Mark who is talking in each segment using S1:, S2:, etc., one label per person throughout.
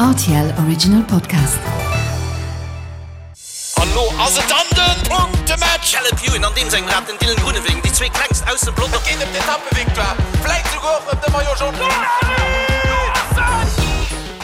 S1: RTL Original Podcast.
S2: An lo ass et dann den Punktematch! Caleb Ewan an deem sengem Rad, den Dylan Groenewegen, déi zwee klengst aus dem Pelotong. Et geet ëm d'Etappevictoire, vläit souguer och ëm de Maillot Jaune.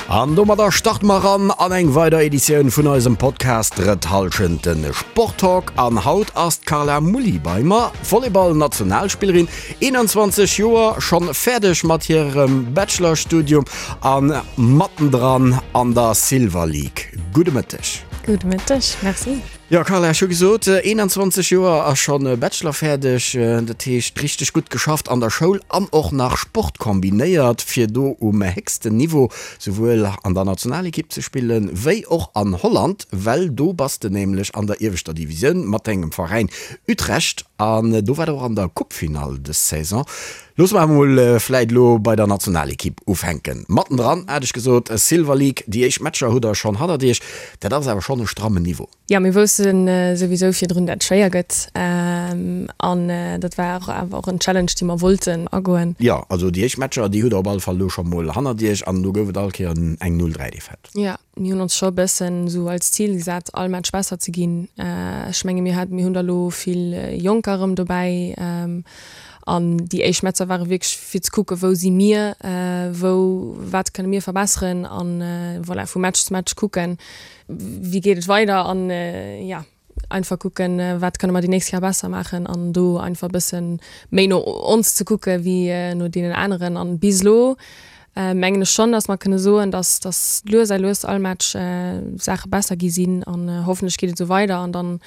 S3: An domadder starte mer eran an eng weider Editioun vun eisem Podcast Drëtt Hallschent, de Sporttalk. An haut ass d'Carla Mulli bei mer, Volleyball-Nationalspillerin, 21 Joer, schonn fäerdeg mat hirem Bachelorstudium a mattendran an der Silver League. Gudde Mëtteg.
S4: Gudde Mëtteg, merci.
S3: Jo Carla, ech hu gesot, 21 Joer a schonn Bachelor fäerdeg, dat heescht richteg gutt geschafft an der Schoul an och nach Sport kombinéiert, fir do um héchsten Niveau souwuel an der Nationalekipp ze spillen, wéi och an Holland, well do bass de nämlech an der ieweschter Divisioun mat dengem Veräin Utrecht an do war der och an der Coupefinall dës Saison. Loosse mer emol vläit elo bei der Nationalekipp ufänken. Mattendran hat ech gesot, Silver League, déi éischt Matcher hutt der schonn hannert iech. Dat ass awer schonn e strammen Niveau.
S4: Jo, mir wousste souwisou virdrun, dat et schwéier gëtt. An dat war och awer och en Challenge, dee mer wollten agoen.
S3: Jo, also déi éischt Matcher, déi hutt der op alle Fall elo scho mol hannert iech an do gouf et all Kéier eng 0 3 Defaite.
S4: Jo. Mir hunn ons scho e bëssen esou als Zil gesat, all Match besser ze ginn. Ech menge mir hat, mir hunn der elo vill Jonker erëm dobäi an déi éischt Matcher ware wierklech fir ze kucke wou si mir, wou, wat kënne mir verbesseren an voilà vu Match zu Match kucken, wéi geet et weider an jo. Einfach kucken, wat kënne mer déi nächst Kéier besser maachen an do einfach e bësse méi no ons ze kucke wéi no deenen aneren. An bis elo mengen ech schonn, datt mer kënne soen, datt datt lues a lues all Match Saache besser gi sinn an hoffentlech geet et esou weider an dann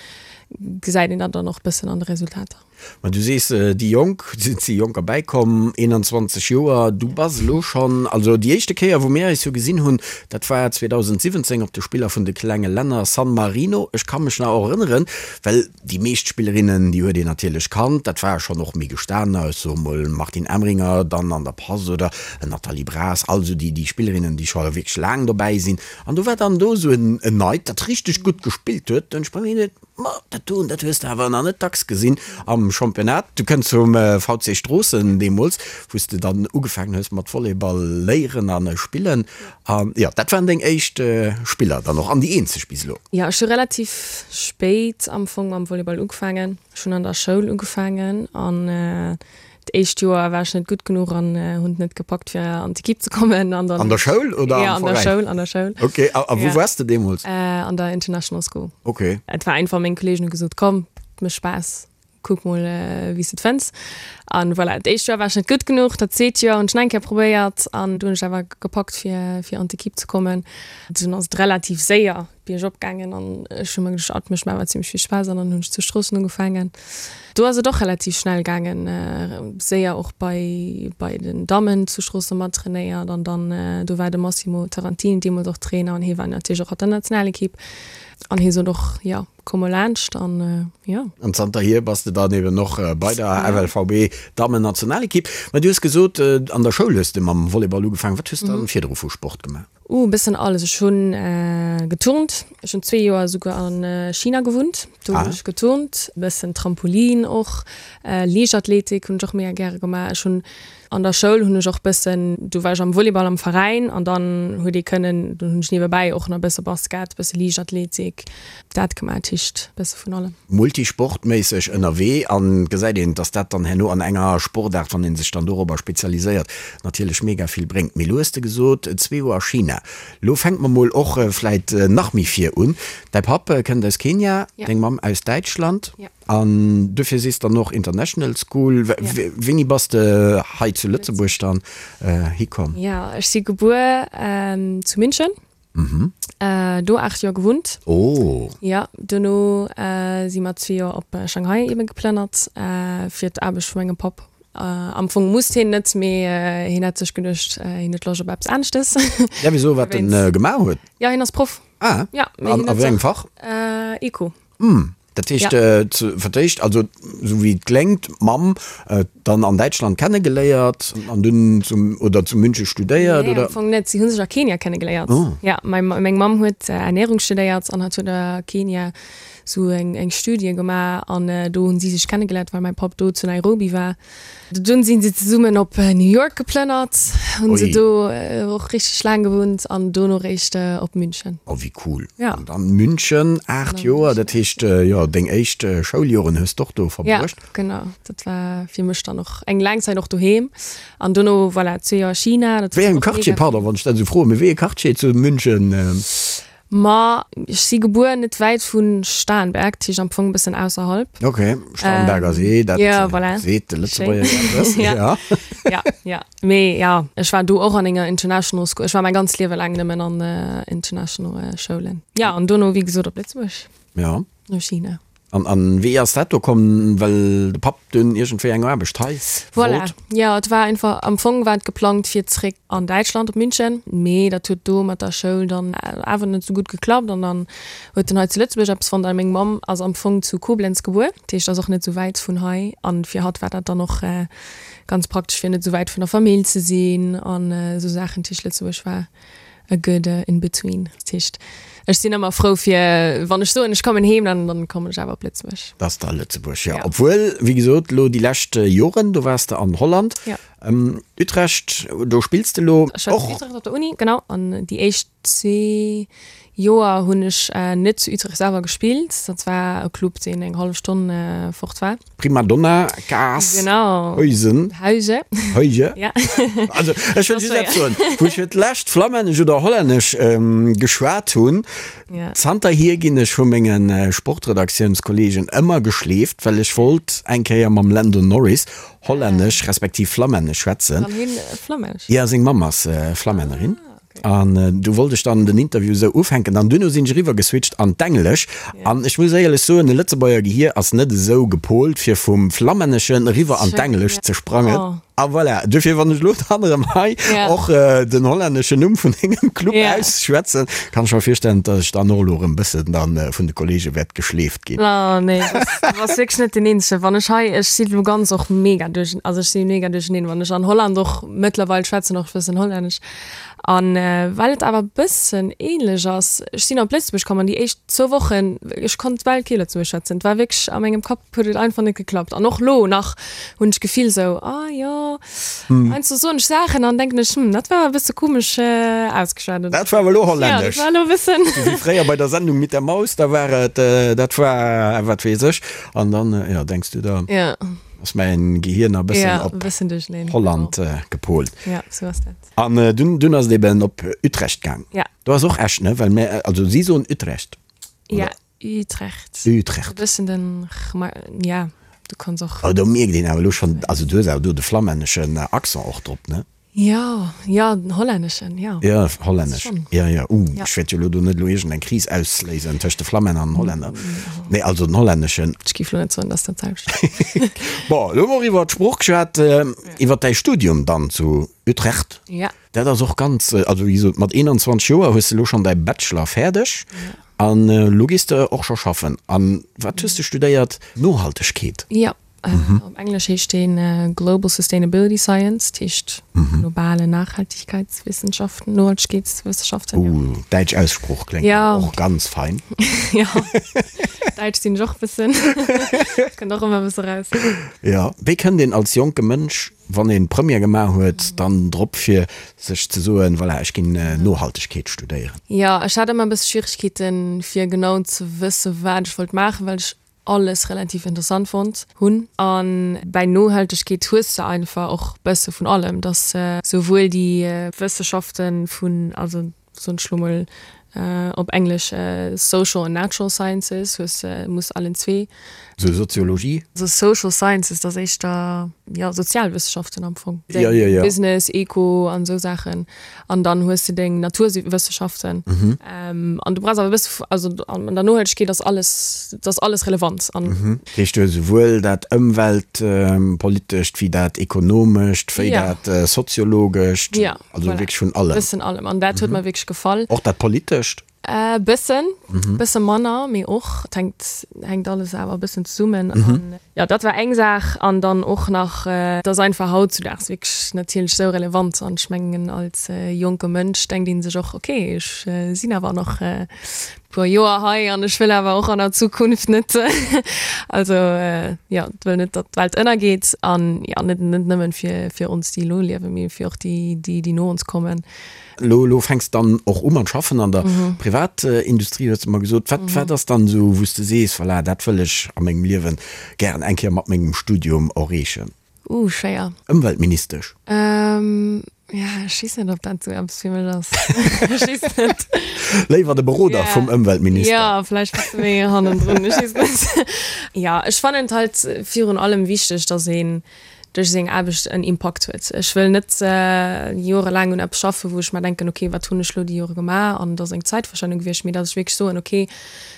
S4: gesäit een dat dann och e bëssen an de Resultater.
S3: Ma du sees, déi Jonk, et si Jonker bäikomm, 21 Joer, du bass elo schonn, also déi éischte Kéier wou mir eis jo gesinn hunn, dat war 2017 op de Spiller vun de klenge Länner, San Marino. Ech ka mech nach och erënneren, well déi meescht Spillerinnen, déi huet een natierlech kannt, dat ware schonn och méi gestaner, ech soe mol Martine Emringer dann an der Pass oder Nathalie Braas, all esou déi Spillerinnen, déi scho wierklech laang dobäi sinn. An do war dann do esou en Neit, dat richteg gutt gespillt huet, hunn ech bei mir geduet, Ma dat doen, dat hues de awer nach net dacks gesinn am Championnat. Du kënns vum VC Stroossen deemools, wou s de dann ugefaangen hues mat Volleyball léieren a spillen. An jo, dat waren deng éischt Spiller dann och an déi eenzeg bis elo.
S4: Jo, ech hu relativ spéit am Fong mam Volleyball ugefaangen. Ech hunn an der Schoul ugefaangen an D'éischt Joer war ech net gutt genuch an hunn et net gepackt fir an d'Equipe ze kommen
S3: an dann. An der Schoul oder am
S4: Veräin? Ja, an der Schoul, an der Schoul.
S3: Ok, a wou waars de deemools?
S4: An der International School.
S3: Ok.
S4: Et war einfach, meng Kolleegen hu gesot, komm, et mécht Spaass, kuck mol wéi s de et fënns. An voilà, d'éischt Joer war ech net gutt genuch, dat zweet Joer hunn ech nach eng Kéier probéiert an du hunn ech awer gepackt fir fir an d'Equipe ze kommen. Dunn ass et relativ séier biergop gaangen an ech hu mer geduecht, ah, et mécht mer awer zimmlech vill Spaass an dann hunn ech zu Stroossen ugefaangen. Do ass et och relativ schnell gaangen, séier och bei bei den Dammen zu Stroossen mat trainéiert an dann do war de Massimo Tarantini deemools och Trainer an hie war natierlech och an der Nationalekipp an hie sot och, jo, komm mol laanscht an jo.
S3: An zanterhier bass de dann eben och bei der FLVB Dammen-Nationalekipp. Mä du hues gesot, an der Schoul hues de mam Volleyball ugefaangen. Wat hues de dann virdru vu Sport gemaach?
S4: Uh, e bëssen alles. Ech hunn geturnt. Ech hunn zwee Joer esouguer a China gewunnt. Do hunn ech geturnt, e bëssen Trampolin och, Liichtathletik hunn ech och mega gäre gemaach. Ech hunn an der Schoul hunn ech och bëssen, do war ech am Volleyball am Veräin an dann huet ee kënnen, dunn hunn ech niewebäi och nach e bësse Basket, e bësse Liichtathletik, dat gemaach. Dat heescht e bësse vun allem.
S3: Multisportméisseg ënnerwee an gesäit een, dass dat dann herno an enger Sportaart, wann ee sech dann dorobber spezialiséiert, natierlech mega vill bréngt. Mee lo hues de gesot, zwee Joer a China. Lo fänke mer mol och vläit nach méi vir un. Däi Papp kënnt aus Kenia, deng Mamm aus Däitschland an duerfir sees dann och International School. Wéini bass de hei zu Lëtzebuerg dann hikomm?
S4: Jo, ech si gebuer zu München. Do 8 Joer gewunnt.
S3: Oh.
S4: Jo, duerno si mer zwee Joer op Shanghai ebe geplënnert fir d'Aarbecht vu mengem Papp. Am Fong musst hien net, mee hien hat sech geduecht, hien huet Loscht op eppes aneschtes.
S3: Däerf ech soen, wat en gemaach huet?
S4: Jo, hien ass Proff.
S3: Ah,
S4: Ja,
S3: mee an hien a huet wéi engem
S4: sech
S3: Fach?
S4: Eco.
S3: Hm. Dat heescht, fir d'éischt, also esou wéi et kléngt, d'Mamm dann an Däitschland kennegeléiert an dunn zum, oder zu München studéiert,
S4: oder? Nee, am Fong net. Si hu sech a Kenia kennegeléiert. Oh. Ja, meng Mamm huet Ernährung studéiert an hat huet a Kenia sou eng eng Studie gemaach an do hunn si sech kennegeléiert, well mäi Papp do zu Nairobi war. Dunn sinn se zesummen op New York geplënnert, hunn se do och richteg laang gewunnt an dono réischt op München.
S3: Oh wéi cool! Ja. An dann München, 8 Joer, dat heescht jo deng éischt Schouljoren hues d'och do verbruecht?
S4: Ja, genau, dat war fir mech dann och eng laang Zäit och doheem an dono voilà zwee Joer China.
S3: Wéi engem Quartier, pardon wann ech dat esou froen, mee wéi ee Quartier zu München?
S4: Ma ech si gebuer net wäit vu Starnberg, dat heescht am Fong e bëssen ausserhalb.
S3: Ok, Starnberger See, dat
S4: ja, voilà.
S3: seet de Lëtzebuerger jo eppes.
S4: Ja, ja, ja. Mee ja, ech war do och an enger International School. Ech war mäi ganzt Liewe laang nëmmen an International Schoulen. Ja, an dono, wéi gesot, op Lëtzebuerg.
S3: Ja.
S4: No China.
S3: An, an wéi ass dat do komm, well de Papp dunn iergendwéi eng Aarbecht hei
S4: Voilà, wollt? jo, et war einfach, am Fong war et geplangt fir zréck an Däitschland op München, mee dat huet do mat der Schoul dann awer net sou gutt geklappt an dann huet en hei zu Lëtzebuerg eppes fonnt. A meng Mamm ass am Fong zu Koblenz gebuer, dat heescht ass och net sou wäit vun hei an fir hatt war dat dann och ganz praktesch fir net sou wäit vun der Famill ze sinn an esou Saachen. Dat heescht Lëtzebuerg war a good in between. Dat heescht, ech sinn ëmmer frou fir, wann ech soen, ech kommen heem, dann, dann kommen ech awer op Lëtzebuerg.
S3: Dat ass da Lëtzebuerg, jo. Obwuel, wéi gesot, elo déi lescht Joren, do waars de an Holland.
S4: Jo.
S3: Utrecht, do spills de elo och.
S4: Ech war zu Utrecht op der Uni, genau. An déi éischt zwee Joer hunn ech net zu Utrecht selwer gespillt. Dat war e Club, deen eng hallef Stonn fort war.
S3: Prima Donna, Kaas,
S4: genau.
S3: Huisen.
S4: Huise.
S3: Huise.
S4: Ja.
S3: Also, ech wëll just eppes soen. Wou ech fir d'lescht Flammännesch oder Hollännesch ähm, geschwat hunn,
S4: ja.
S3: zanterhier ginn ech vu mengen äh, Sportredaktiounskolleegen ëmmer geschleeft, well ech wollt eng Kéier mam Lando Norris Hollännesch respektiv Flammännesch schwätzen.
S4: Kann hien Flammännesch?
S3: Ja, seng Mamm ass äh, Flammännerin. Ah. An du wollt ech dann den Interview esou ufänken an duerno sinn ech eriwwer geswitcht an d'Englesch. An ech muss éierlech soen, e Lëtzebuerger Gehier ass net esou gepolt fir vum Flammänneschen eriwwer an d'Englescht ze sprangen. A voilà, duerfir wann ech elo dann erëm hei och den hollänneschen Numm vun dengem Club ausschwätzen, kann ech mer virstellen, datt ech dann och elo erëm bëssen dann vun de Kollege wäert geschleeft ginn.
S4: Oh nee, du bass wierklech net deen Eenzegen. Wann ech hei, ech si lo ganz och mega duerch, also ech si mega duercheneen, wann ech an Holland och mëttlerweil schwätzen och e bëssen Hollännesch. An well et awer e bëssen ähnlech ass, ech sinn op Lëtzebuerg komm an déi éischt zwou Wochen, ech konnt bal kee Lëtzebuergesch schwätzen. Et war wierklech, a mengem Kapp huet et einfach net geklappt. An och lo nach hunn ech d'Gefill sou, ah jo, heiansdo soen ech Saachen an denken ech, hm, dat war awer e bësse komesch ausgeschwat.
S3: Dat war awer elo Hollännesch.
S4: Ja, dat war elo e bëssen.
S3: Sou wéi fréier bei der Sendung mit der Maus, da war et, dat war wat weess ech. An dann, jo, denks du der, ass mäin Gehir nach e bëssen op Holland gepolt.
S4: Ja, sou ass dat.
S3: An dunn, dunn ass et eben op Utrecht gaang.
S4: Ja.
S3: Do ass och Esch, ne? Well mir, also si soen Utrecht.
S4: Ja, Utrecht.
S3: Utrecht.
S4: E bëssen den r, ma ja, du kanns och.
S3: Oh, do mierkt een awer elo schonn, also du hues awer do de flammänneschen Accent och drop, ne?
S4: Jo, jo, den hollänneschen, jo.
S3: Jo, hollännesch.
S4: Schonn.
S3: Jo, jo. Uh,
S4: Ja.
S3: ech wäert jo elo do net elo iergendeng Kris ausléisen tëscht de Flammänner an den Hollänner. Nee, also den hollänneschen.
S4: Ech géif elo net soen, dass dat d'selwecht.
S3: Bon, elo hu mer och iwwer d'Sprooch geschwat, iwwer däi Studium dann zu Utrecht.
S4: Ja.
S3: Dat ass och ganz, also wéi gesot, mat 21 Joer hues de elo schonn däi Bachelor fäerdeg an elo gees de och scho schaffen. An wat hues de studéiert? Nohaltegkeet?
S4: Jo, op Englesch heescht deen Global Sustainability Science, dat heescht globale Nachhaltigkeitswissenschaften, Nohaltegkeetswissenschaften,
S3: jo. Uh, däitsch Aussprooch kléngt och ganz fein.
S4: Jo, däitsch sinn ech och e bëssen, kënnt och ëmmer e bësse raus.
S3: Jo, wéi kënnt een als jonke Mënsch wann een Première gemaach huet, dann drop fir sech ze soen, voilà, ech ginn Nohaltegkeet studéieren?
S4: Jo, ech hat ëmmer e bësse Schwieregkeeten, fir genau ze wësse wat ech wollt maachen, well ech alles relativ interessant fonnt hunn. A bäi Nohaltegkeet hues de einfach och bësse vun allem, dass souwuel déi Wësseschafte vun, also soen ech lo mol op Englesch Social and Natural Sciences, hues muss allen zwee.
S3: Sou Soziologie?
S4: Sou Social Sciences, dat ass éischter, jo, Sozialwëssenschaften am Fong.
S3: Jo, jo, jo.
S4: Business, Eco an esou Saachen. An dann hues de deng Naturwëssenschaften. An du brauchs awer e bësse, also an der Nohaltegkeet ass alles, dat ass alles relevant.
S3: An. Dat heescht, du hues esouwuel dat Ëmweltpolitescht wéi dat Ekonomescht, wéi dat Soziologescht.
S4: Jo.
S3: Also wierklech vun allem.
S4: Bëssen allem. An dat huet mer wierklech gefall.
S3: Och dat Politescht?
S4: Äh, bëssen, bësse manner, mee och. Et hänkt, hänkt alles awer e bëssen zesummen. An jo, dat war eng Saach. An dann och nach, et ass einfach hautzudaags wierklech natierlech esou relevant. An ech mengen, als jonke Mënsch denkt ee sech och, okay, ech sinn awer nach e puer Joer hei an ech wëll awer och an der Zukunft net, also jo, wëll net, datt d'Welt ënnergeet. An jo, net, net nëmmen fir, fir ons, déi elo liewen, mee fir och déi, déi, déi no ons kommen.
S3: Lo, lo fänks dann och u mat schaffen an der Privatindustrie, hues de mer gesot. Wat, wat ass dann esou, wou s de sees, voilà, dat wëll ech a mengem Liewen gären eng Kéier mat mengem Studium erreechen?
S4: Uh, schwéier.
S3: Ëmweltministesch?
S4: Ja, ech weess net, ob dat esou eppes fir mech ass. Ech weess net.
S3: Léiwer de Beroder vum Ëmweltminister?
S4: Jo, vläicht bësse méi hannendrun, ech weess net. Jo, ech fannen et halt virun allem wichteg, dass een duerch seng Aarbecht en Impakt huet. Ech wëll net jorelaang un eppes schaffen, wou ech mer denken, ok, wat hunn ech elo déi Jore gemaach an et ass eng Zäitverschwendung gewiescht, mee datt ech wierklech soen, ok,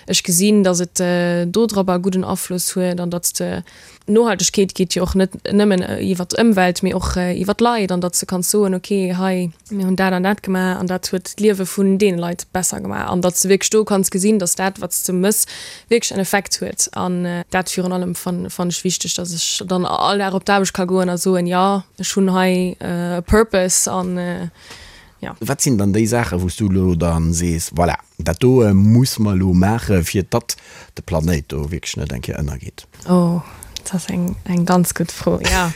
S4: ech gesinn, datt et dodropper e gudden Afloss huet an datt s de, Nohaltegkeet geet jo och net nëmmen iwwer d'Ëmwelt, mee och iwwer d'Leit an datt s de kanns soen, ok, hei, mir hunn dat an dat gemaach an dat huet d'Liewe vun deene Leit besser gemaach an datt s de wierklech do kanns gesinn, datt dat, wat s de mëss, wierklech en Effekt huet. An dat virun allem fannen ech wichteg, datt ech dann all Dag op d'Aarbecht ka goen a soen, jo, ech hunn hei e Purpose an jo.
S3: Wat sinn dann déi Saachen, wou s du elo dann sees, voilà, dat do muss mer elo maache fir datt de Planéit do wierklech net eng Kéier ënnergeet?
S4: Oh, dat ass eng, eng ganz gutt Fro, ja.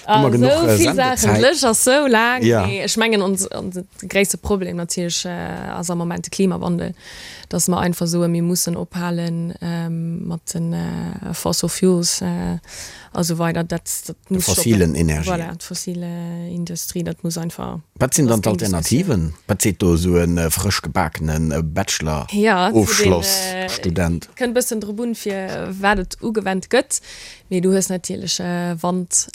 S3: Hu mer genuch
S4: Esou vill Saachen,
S3: Sendezäit?
S4: d'Lëscht ass sou laang.
S3: Ja.
S4: Mee ech mengen, ons, onse gréisste Problem natierlech ass am Moment de Klimawandel, dass mer einfach soen, mir mussen ophale mat de Fossil Fuels a sou weider. Dat, dat
S3: De
S4: muss stoppen.
S3: fossilen Energien.
S4: Voilà, d'fossile Industrie, dat muss einfach.
S3: Wat sinn
S4: Dat
S3: dann
S4: ass keng Diskussioun.
S3: d'Alternativen? Wat seet do esou e frësch gebakene Bachelor-Ofschloss-Student?
S4: Kënnt bëssen drop un, fir wat et ugewennt gëtt, mee du hues natierlech Wand,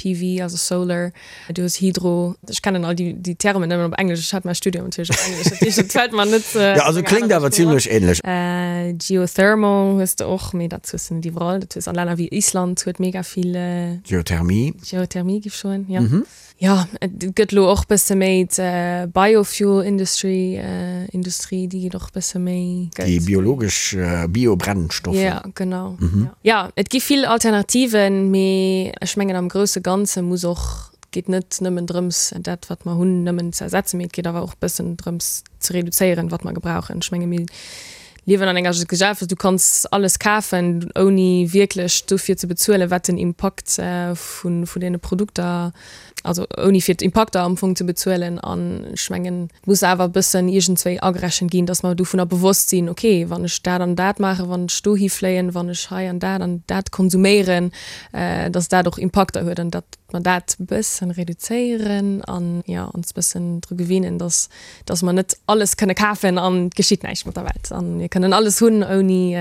S4: PV, also Solar, du hues Hydro. Ech kennen all déi Termen nëmmen op Englesch, ech hat mäi Studium natierlech op Englesch, dat heescht, et fält mer net.
S3: Jo, also kléngt awer zimlech ähnlech.
S4: Geothermal hues de och, mee dat hues de net iwwerall. Dat hues an Länner wéi Island huet mega vill.
S3: Geothermie.
S4: Geothermie giff ech soen, jo. Jo, et gëtt elo och bësse méi d'Biofuel Industry, Industrie, déi geet och bësse méi.
S3: Déi biologesch Biobrennstoffer.
S4: Jo, genau. Jo, et gi vill Alternativen, mee ech mengen am grousse Ganze muss och, et geet net nëmmen drëms dat wat mer hunn nëmmen ze ersetzen, mee et geet awer och bëssen drëms ze reduzéieren wat mer gebrauchen. Ech menge mir liewen an enger Gesellschaft, du kanns alles kafen, ouni wierklech dofir ze bezuelen, wat den Impakt vun deene Produkter, also ouni fir d'Impakter am Fong ze bezuelen. An ech mengen, et muss awer e bëssen iergendswéi agerechent ginn, datt mer dovunner bewosst sinn, okay, wann ech dat an dat maachen, wann ech dohi fléien, wann ech hei an dat an dat konsuméieren, datt dat och Impakter huet an datt mer dat e bëssen reduzéieren an, jo, ons e bëssen dru gewinnen, datt dass mer net alles kënne kafen an et geschitt näischt mat der Welt an mir kënnen alles hunn ouni,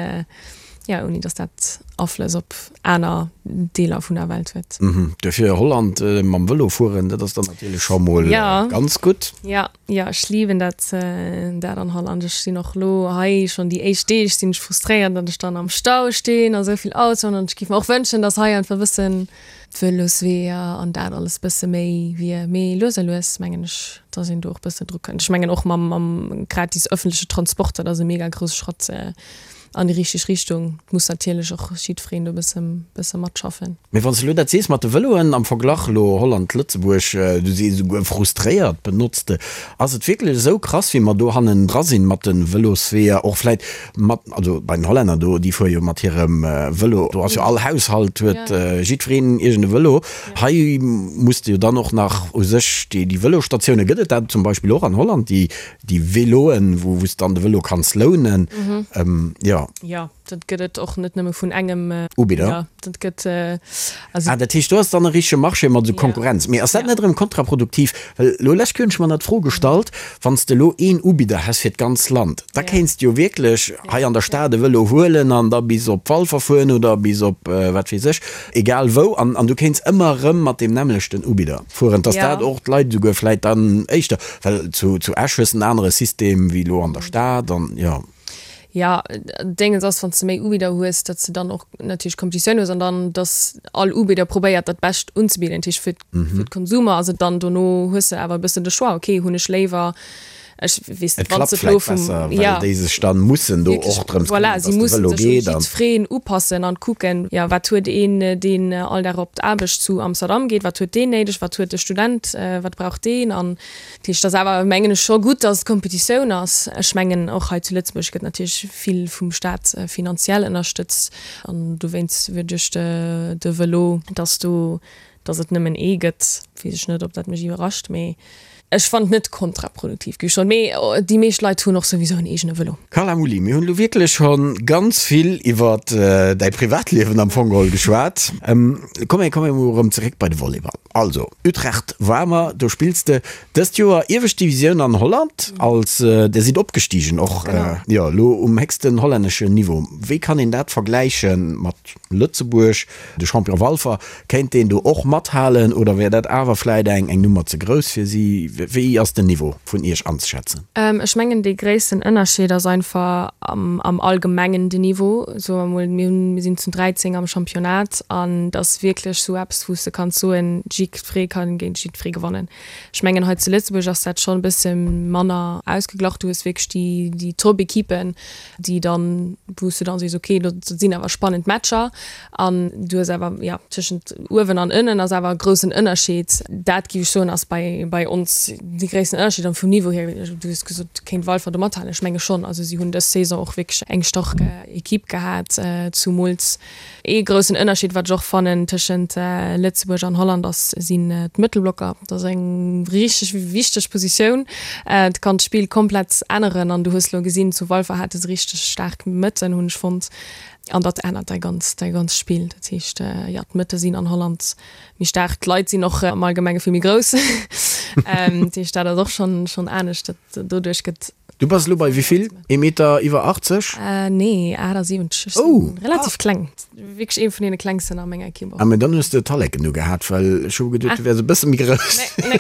S4: jo, ouni dass dat Aflëss op aner Deeler vun der Welt huet.
S3: Duerfir Holland mam Vëlo fueren, dat ass dann natierlech scho mol ganz gutt.
S4: Jo, jo, ech liwen dat, dat an Holland. Ech sinn och elo hei schonn déi éischt Deeg sinn ech frustréiert, datt ech dann am Stau stinn a sou vill Autoen an ech géif mer och wënschen, dass hei einfach e bëssen d'Vëlosweeër an dat alles bësse méi wier. Mee lues a lues mengen ech, dass een do och bëssen dru kënnt. Ech mengen och mam mam gratis ëffentleche Transport, dat ass e mega grousse Schratt an déi richteg Richtung. Et muss natierlech och jiddwereen do bësse bësse matschaffen.
S3: Mee wann s de elo dat sees mat de Vëloen am Verglach elo Holland, Lëtzebuerg, du sees esouguer frustréiert benotzt de, ass et wierklech esou krass wéi mer do hannendra sinn mat de Vëlosweeër, och vläit mat, also bei den Hollänner do, déi fuere jo mat hirem Vëlo, do ass jo all Haushalt huet jiddwereen iergend e Vëlo. Hei muss de jo dann och nach u sech déi Vëlostatioune, gëtt et dat zum Beispill och an Holland, déi déi Véloen, wou s de dann de Vëlo kanns lounen? Jo.
S4: Jo, dat gëtt et och net nëmme vun engem
S3: Ubidder.
S4: Dat gëtt also.
S3: Ah, dat heescht, do ass dann e richtege Marché mat esou Konkurrenz. Mee ass dat net erëm kontraproduktiv? Well elo lech hunn ech mer nach d'Fro gestallt, Wann s de elo een Ubidder häss fir d'ganz Land, da kéints de jo wierklech hei an der Stad e Vëlo huelen an da bis op Walfer fueren oder bis op wat weess ech, egal wou, an an du kéints ëmmer erëm mat deem nämmlechten Ubidder fueren. Dass dat och d'Leit esouguer vläit dann éischter, well zu zu Esch hues de en anere System wéi elo an der Stad an jo.
S4: Jo, Déngens ass, wann s de méi Ubidder hues, datt s de dann och natierlech Competitioun hues an dann, datt all Ubidder probéiert, dat Bescht unzebidden. Dat heescht, fir fir d'Konsumer ass et dann dono, hues de awer e bëssen de Choix, okay, hunn ech léiwer. Ech weess
S3: net, wann s de elo vum, ja, well déi sech dann mussen do och drëms
S4: këmmeren, dass de Vëlo geet an. Voilà, si mussen sech u jiddwereen upassen an kucken, jo, wat huet een, deen all Dag op d'Aarbecht zu Amsterdam geet, wat huet deen néideg, wat huet de Student, wat brauch deen an dat heescht, et ass awer, mengen ech, scho gutt, dass et Kompetitioun ass. Ech mengen, och hei zu Lëtzebuerg gëtt natierlech vill vum Staat finanziell ënnerstëtzt an dowéinst duerch de Vëlo, dass do Dass et nëmmen ee gëtt, weess ech net, ob dat mech iwwerrascht, mee ech fannen et net kontraproduktiv, géif ech soen. Mee déi meescht Leit hunn och souwisou en eegene Vëlo.
S3: Carla Mulli, mir hunn elo wierklech scho ganz vill iwwer däi Privatliewen am Fong geholl geschwat. Komm mir komme mol erëm zeréck bei de Volleyball. Also, Utrecht war mer, do spills de dëst Joer iewescht Divisioun an Holland, als der sidd opgestigen och, jo, elo um héchsten hollänneschen Niveau. Wéi kann een dat vergläiche mat Lëtzebuerg? De Champion Walfer, kéint deen do och mathalen oder wär dat awer vläit eng eng Nummer ze grouss fir si? Wéi ass den Niveau vun Iech anzeschätzen?
S4: Ech mengen dee gréissten Ënnerscheed ass einfach am am Allgemengen den Niveau. Soe mer mol, mir hunn, mir sinn zu 13 am Championnat an et ass wierklech sou eppes wou s de kanns soen, jiddweree ka géint jiddweree gewannen. Ech mengen hei zu Lëtzebuerg ass dat schonn e bësse manner ausgeglach. Du hues wierklech déi déi Top-Equipen, déi dann, wou s du dann sees, okay, dat sinn awer spannend Matcher an du hues awer, jo, tëschent uewen an ënnen ass awer e groussen Ënnerscheed. Dat géif ech soen, ass bei, bei ons dee gréissten Ënnerscheed. An vum Niveau hier, du hues gesot, kéint Walfer do mathalen, ech menge schonn. Also si hunn dës Saison och wierklech eng stark Equipe gehat, zumools Ee groussen Ënnerscheed, wat ech och fannen tëschent Lëtzebuerg an Holland ass, sinn d'Mëttelblocker. Dat ass eng richteg wichteg Positioun. Et kann d'Spill komplett änneren an du hues elo gesinn, zu Walfer hate se richteg staark Mëtten, hunn ech fonnt. An dat ännert däi ganz, däi ganz Spill. Dat heescht, jo, d'Mëtte sinn an Holland méi staark. D'Leit sinn och am Allgemenge vill méi grouss. Dat heescht, dat ass och schonn, schonn anescht. Dat doduerch gëtt.
S3: Du bass elo bei wéivill? Ee Meter iwwer 80?
S4: Nee, 78. Ech sinn relativ kleng. Wierklech ee vun deene klengsten a menger Ekipp och.
S3: Ah, mä dann hues de Talleken ugehat, well ech hu geduet, du wäers e bësse méi grouss.
S4: Nee,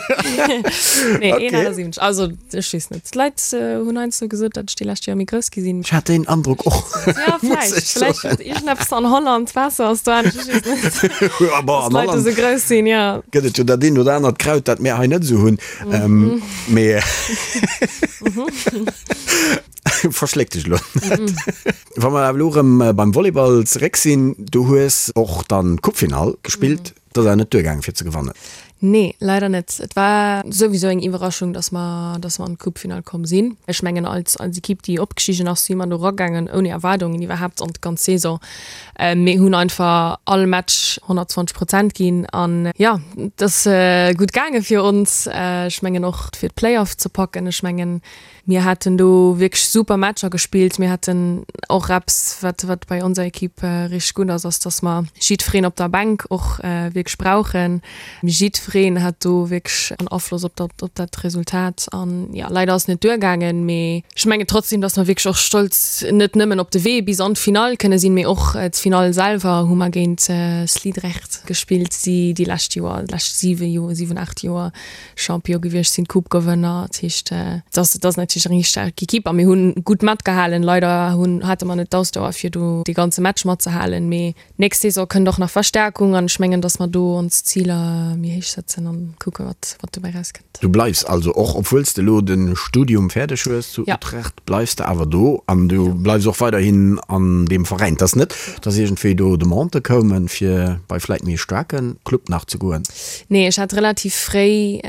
S4: nee. Nee, 1,78. Also, ech weess net. D'Leit hunn heiansdo gesot, datt ech déi lescht Joer méi grouss gi sinn.
S3: Ech hat deen Androck och.
S4: Ja, vläicht. Vläicht huet iergendeppes an Holland, d'Waasser ass do anescht, ech weess net.
S3: Ja, bon, an
S4: Dass d'Leit do
S3: Holland
S4: esou grouss sinn, jo.
S3: gëtt et jo dat eent oder anert Kraut, dat mir hei net esou hunn. Ähm, mee verschléck dech elo net. Wa mer awer elo erëm beim Volleyball zeréck sinn, du hues och dann d'Coupefinall gespillt, dat ass awer net duergaangen fir ze gewannen.
S4: Nee, leider net. Et war souwisou eng Iwwerraschung, dass mer, dass mer an d'Coupefinall komm sinn. Ech mengen als, als Equipe, déi opgestigen ass, si mer do eragaangen ouni Erwaardungen iwwerhaapt an d'ganz Saison. Mir hunn einfach all Match 120 Prozent ginn an jo, et ass gutt gaange fir ons. Ech mengen och fir d'Playoff ze packen. Ech mengen mir haten do wierklech super Matcher gespillt. Mir haten och eppes, wat wat bei onser Equipe richteg gutt ass, ass datt mer jiddwereen op der Bänk och wierklech brauchen. Jiddwereen hat do wierklech en Afloss op dat, op dat Resultat. An jo, leider ass et net duergaangen, mee ech mengen trotzdem, dass mer wierklech och stolz net nëmmen op de Wee bis an d'Finall kënne sinn, mee och d'Finall selwer hu mer géint Sliedrecht gespillt, déi déi lescht Joer, déi lescht 7 Joer, 7, 8 Joer Champion gewiescht sinn, Coupe-Gewënner. Dat heescht, et ass, et ass natierlech eng richteg staark Ekipp a mir hunn gutt matgehalen. Leider hunn, hate mer net d'Ausdauer fir do dee ganze Match matzehalen, mee Nächst Saison kënnt och nach Verstärkung an ech mengen, dass mer do ons Ziler méi héich setzen an kucke wat wat dobäi rauskënnt.
S3: Du bleifs also och, obwuel s de elo de Studium fäerdeg hues zu Utrecht, bleifs de awer do an du bleifs och weiderhin an deem Veräin. Et ass net, dass iergendwéi do Demandë koumen, fir bei vläit méi e staarke Club nach ze goen?
S4: Nee, ech hat relativ fréi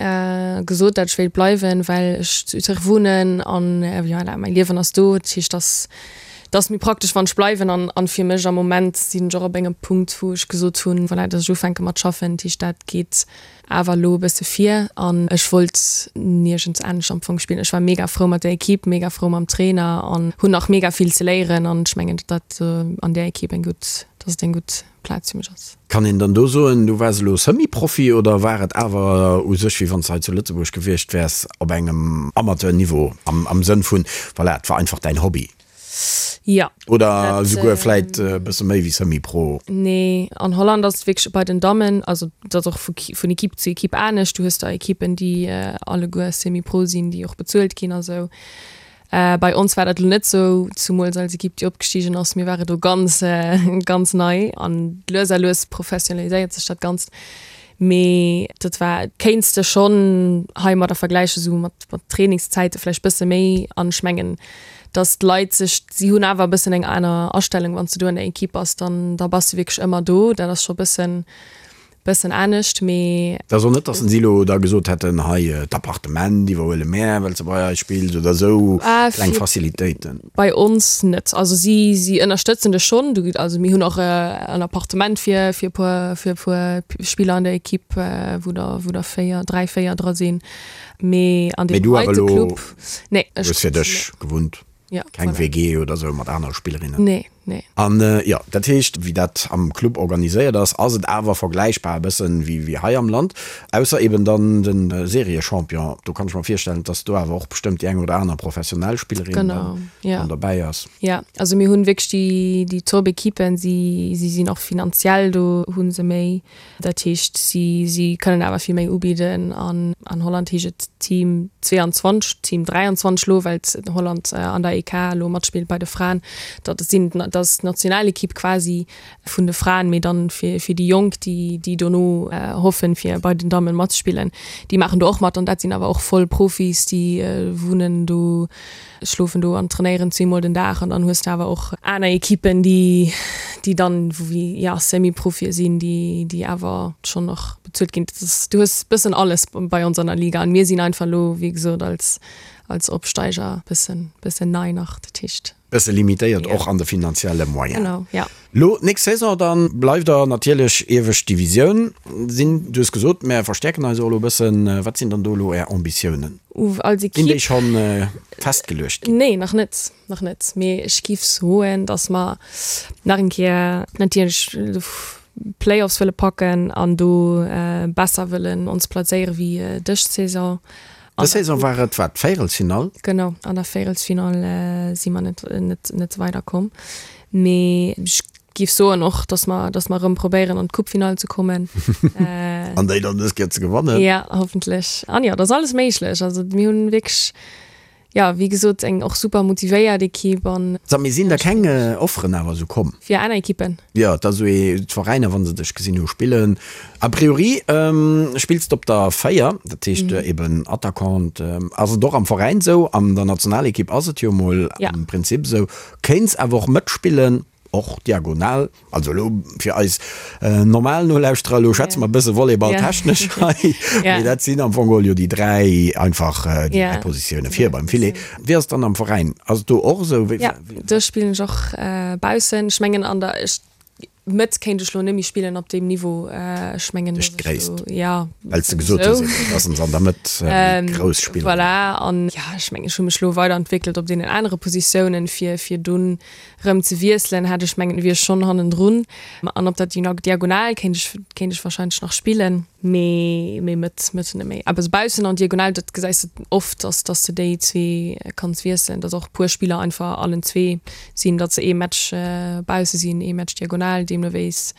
S4: gesot, dat ech wéilt bleiwen, well ech zu Utrecht wunnen an voilà, mäi Liewen ass do. Dat heescht, dass Et ass méi praktesch wann ech bleiwen an an fir mech am Moment sinn ech och op engem Punkt wou ech gesot hunn, voilà, dass ech ufänke mat schaffen, dat heescht dat geet awer elo e bësse vir an ech wollt niergends anescht am Fong spillen. Ech war mega frou mat der Equipe, mega frou mam Trainer an hunn nach mega vill ze léieren an ech mengen datt dat an där Equipe eng gutt, dass et eng gutt Plaz fir mech ass.
S3: Kann een dann do soen, du waars elo Semi-Profi oder war et awer u sech wéi wann s de hei zu Lëtzebuerg gewiescht wäers op engem Amateur-Niveau am am Sënn vun, voilà, et war einfach däin Hobby?
S4: Jo.
S3: Oder esouguer vläit e bësse méi wéi Semi-Pro?
S4: Nee, an Holland ass et wierklech bei den Dammen, also et ass och vu vun Equipe zu Equipe anescht. Du hues der Equippen, déi alleguer Semi-Pro sinn, déi och bezuelt ginn a sou. Bei ons war dat elo net sou, zumools als Equipe déi opgestigen ass. Mir ware do ganz, ganz nei an lues a lues professionaliséiert sech dat Ganzt. Mee dat war, kéints de schonn heimadder vergläichen, esou mat mat Trainingszäite vläicht bësse méi. An ech mengen, datt d'Leit sech, si hunn awer e bëssen eng aner Astellung, wann s de do an der Equipe bass, dann da bass de wierklech ëmmer do. Dat ass scho bëssen bëssen anescht, mee.
S3: Et ass och net, datt se elo da gesot hätten, hei d'Appartement iwwerhuele mär, well s de bei eis spills oder esou kleng Facilitéiten.
S4: Bei ons net. Also si si ënnerstëtzen dech schonn. Du, also mir hunn och en Appartement fir fir e puer fir e puer Spiller an der Equipe, wou der wou der 4, 3, 4 dra sinn. Mee an
S3: Mee
S4: deem
S3: du awer
S4: heite
S3: elo
S4: Club, nee, ech
S3: hues fir dech gewunnt,
S4: Ja,
S3: keng
S4: voilà.
S3: WG oder esou mat anere Spillerinnen?
S4: Nee. Nee.
S3: An jo, dat heescht, wéi dat am Club organiséiert ass, ass et awer vergläichbar e bëssen wéi wéi hei am Land, ausser eben dann de Seriechampion. Do kann ech mer virstellen, dass do awer och bestëmmt déi eng oder aner professionell Spillerin
S4: Genau, ja.
S3: dann derbäi ass.
S4: Ja, also mir hunn wierklech déi déi Top-Ekippen, si si sinn och finanziell do hu se méi. Dat heescht, si si kënnen awer vill méi ubidden. An an Holland heescht et Team 22, Team 23 elo, well Holland an der EK elo matspillt bei de Fraen. Dat sinn dat ass d'Nationalekipp quasi vun de Fraen, mee dann fir fir déi Jonk, déi déi dono hoffen, fir bei den Dammen matzespillen, déi maachen do och mat. An dat sinn awer och voll Profis, déi wunnen do. schlofen do an trainéieren zweemol den Dag an dann hues de awer och aner Ekippen, déi déi dann wéi ja Semi-Profie sinn, déi déi awer schonn och bezuelt ginn. Dat ass, du hues bëssen alles bei ons an der Liga an mir sinn einfach elo wéi gesot als als Opsteiger bëssen bëssen nei nach, dat heescht.
S3: Bësse limitéiert och an de finanzielle Moyen.
S4: Genau, ja.
S3: Lo d'nächst Saison dann bleift der natierlech iewescht Divisioun sinn. Du hues gesot, mär verstäerken eis och elo e bëssen. Wat sinn dann do elo Är Ambitiounen?
S4: Als
S3: Sinn déi
S4: Equipe?
S3: schonn festgeluecht ginn?
S4: Nee, nach net, nach net. Mee ech giff soen, datt mer nach eng Kéier natierlech d'Playoffs wëlle packen an do besser wëllen ons plazéiere wéi dës Saison.
S3: Dës Saison war et wat, d'Véierelsfinall?
S4: Genau, an der Véierelsfinall si mer net, net, net weiderkomm. Mee ech géif soen och, datt mer, datt mer erëm probéieren an d'Coupefinall ze kommen.
S3: An déi dann dës Kéier ze gewannen.
S4: Ja, hoffentlech. An jo, et ass alles méiglech. Also mir hunn wierklech, jo, wéi gesot, eng och super motivéiert Ekipp an.
S3: Sag, mee sinn da keng Offeren awer esou komm?
S4: Fir aner Ekippen?
S3: Jo, et ass esou ee, d'Veräiner, wa se dech gesinn hu spillen. A priori spills de op der 4, dat heescht eben Attaquant. Ass et och am Veräin esou? An der Nationalekipp ass et jo mol am Prinzip esou. Kéints awer och mëtspillen, och diagonal. Also elo fir eis normal Nolauschterer, elo schwätze mer e bësse volleyballtechnesch hei, mee dat sinn am Fong geholl jo déi 3 einfach déi 3 Positioune vir beim Filet. Wéi ass et dann am Veräin? Ass et do och esou?
S4: Jo, do spillen ech och baussen. Ech mengen an der, Mëtt kéint ech lo net méi spillen op deem Niveau. Ech mengen,
S3: Duerch d'Gréisst.
S4: Ja.
S3: Well s de gesot hues eben, dass se an der Mëtt méi grouss spillen.
S4: Voilà. An ja, ech mengen, ech hu mech lo weiderentwéckelt op deenen anere Positiounen, fir, fir dunn rëm ze wiesselen, hätt ech mengen, wier ech schonn hannendrun. An op der Diagonal kéint ech, kéint ech wahrscheinlech nach spillen. Mee, mee Mëtt, Mëtt net méi. Awer sou baussen an Diagonal, dat gesäis de oft, dass, dass de déi zwee kanns wiesselen, dass och e puer Spiller einfach allen zwee sinn, datt se ee Match bausse sinn, ee Match diagonal, deemno wéis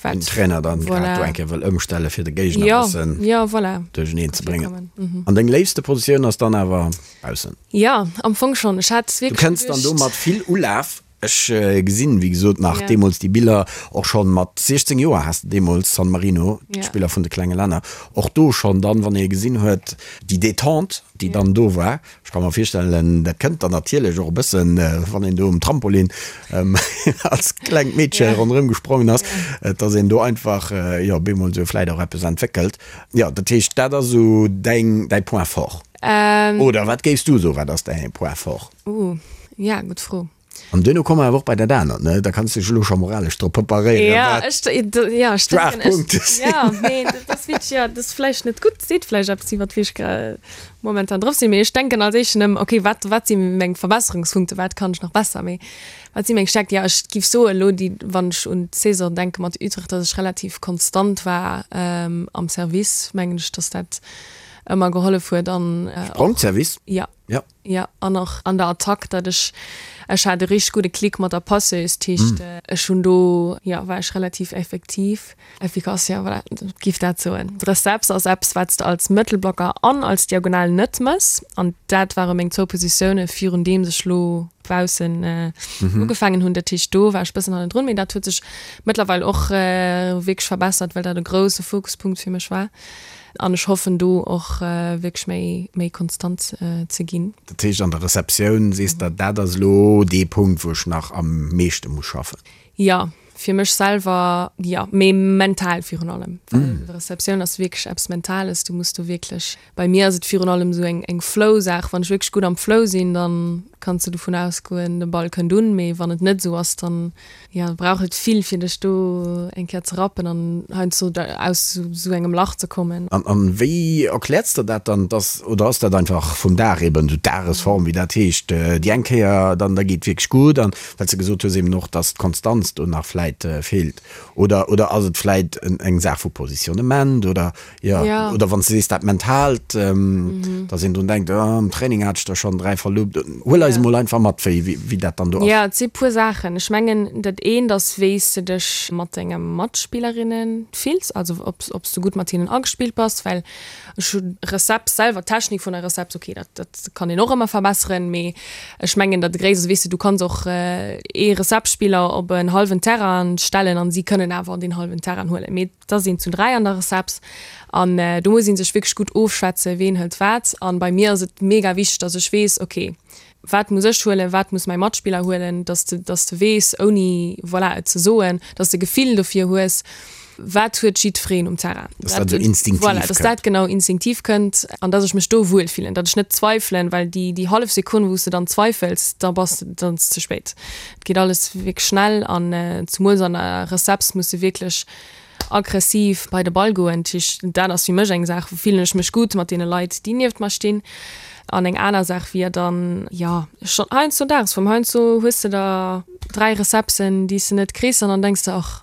S3: wat. Den Trainer dann grad do eng Kéier wëll ëmstelle fir de Géigner e bëssen
S4: jo, voilà,
S3: duercheneen ze bréngen. An deng léifste Positioun ass dann awer baussen?
S4: Jo, am Fong schonn. Ech hat
S3: wierklech. Du kënns dann do mat vill Ulaf. Ech gesinn, wéi gesot, nach deemools déi Biller, och schonn mat 16 Joer has de deemools San Marino, d'Spiller vun de klenge Länner, och do schonn dann, wann ee gesinn huet, déi Detente, déi dann do war. Ech ka mer virstellen, dat kënnt dann natierlech och e bëssen, wann een do um Trampolin als klengt Meedche ronderëm gesprongen ass, dass een do einfach, jo, bemol esou vläit och eppes entwéckelt. Jo, dat heescht, dat ass esou däin, däi Point fort. Oder wat géifs du soen, wat ass däi Point fort?
S4: Uh, ja, gutt Fro.
S3: An duerno komme mer awer och bei dat anert, ne? Da kanns du dech elo scho moralesch drop preparéieren,
S4: Ja,
S3: wat
S4: ech, ja, ech denken, ech,
S3: d'Schwaachpunkte sinn.
S4: ja, mee dat ass wierklech, ja, dat ass vläicht net gutt, seet vläicht eppes iwwert wéi ech gra momentan drop sinn, mee ech denken als éischten ëm, okay, wat, wat si meng Verbesserungspunkte, wat kann ech nach besser, mee wat si meng Stärkt? Ja, ech giff soen, elo déi, wann ech un d'Saison denke mat Utrecht, datt ech relativ konstant war am Service, mengen ech, datt dat. ëmmer gehollef huet an
S3: Sprongservice?
S4: Jo.
S3: Jo.
S4: Jo, an och an der Attack, datt ech, ech hat e richteg gudde Klick mat der Passeuse, dat heescht ech hunn do, jo, war ech relativ effektiv, efficace, jo, voilà, giff dat soen. D'Receps ass eppes, wat s de als Mëttelblocker an als Diagonal net mëss, an dat ware meng zwou Positioune virun deems ech lo baussen ugefaangen hunn. Dat heescht do war ech bëssen hannendrun, mee dat huet sech mëttlerweil och wierklech verbessert, well dat e grousse Fokuspunkt fir mech war. An ech hoffen do och wierklech méi, méi konstant ze ginn.
S3: Dat heescht an der Receptioun sees der, dat ass elo dee Punkt wou ech nach am meeschte muss schaffen?
S4: Jo, fir mech selwer jo, mee mental virun allem. Well Receptioun ass wierklech eppes Mentales, du muss do wierklech, bei mir ass et virun allem esou eng, eng Flow-Saach, wann ech wierklech gutt am Flow sinn, dann kanns de dovun ausgoen, de Ball kënnt un, mee wann et net esou ass, dann Jo, brauch et vill fir dech do eng Kéier ze rappen an heiansdo aus sou engem Lach ze kommen.
S3: An wéi erkläerts der dat dann, dass, oder ass dat einfach vum Dag eben, sou d'Dagesform wéi dat heescht, déi eng Kéier dann da geet wierklech gutt an well s de gesot hues eben och, dass d'Konstanz do nach vläit feelt oder oder ass et vläit eng Saach vu Positionnement oder Jo,
S4: Ja.
S3: oder wann s de sees dat Mentaalt, dass een drun denkt, oh, am Training hat ech der schonn 3 verloopt. Huel eis
S4: Ja.
S3: emol einfach mat, wéi, wéi dat dann do ass.
S4: Jo, et si puer Saachen. Ech mengen, dat eent ass, wéi s de dech mat denge Matspillerinne fills, also ob, ob s du gutt mat hinnen agespillt bass, well ech hu Recept selwer, d'Technik vun der Recept, okay, dat, dat kann een och ëmmer verbesseren, mee ech mengen, dat Gréisst ass, weess de, du kanns och ee Receptspiller op en hallwen Terrain stellen an si kënnen awer deen hallwen Terrain huelen, mee Et ass een zu 3 an der Receps an do muss ee sech wierklech gutt ofschwätzen, ween hëlt wat. An bei mir ass et mega wichteg, dass ech weess, ok, wat muss ech huelen, wat muss mäi Matspiller huelen, dass de, dass de weess, ouni, voilà, et ze soen, dass de Gefill dofir hues, wat huet jiddwereen um Terrain.
S3: Dass dat esou instinktiv
S4: kënnt. Voilà, dass dat genau instinktiv kënnt an dass ech mech do wuel fillen, datt ech net zweifelen, well déi, déi hallef Sekonn, wou s de dann zweifels, da bass de, dann ass et ze spéit. Et geet alles wierklech schnell an zemools an der Receps muss de wierklech aggressiv bei de Ball goen. Dat heescht, dat ass fir mech eng Saach, wou fillen ech mech gutt mat deene Leit, déi nieft mer stinn. An eng aner Saach wier dann, jo, schonn heiansdo Dagesform. Heiansdo hues de der 3 Recepsen, déi s de net kriss an dann denks de, ach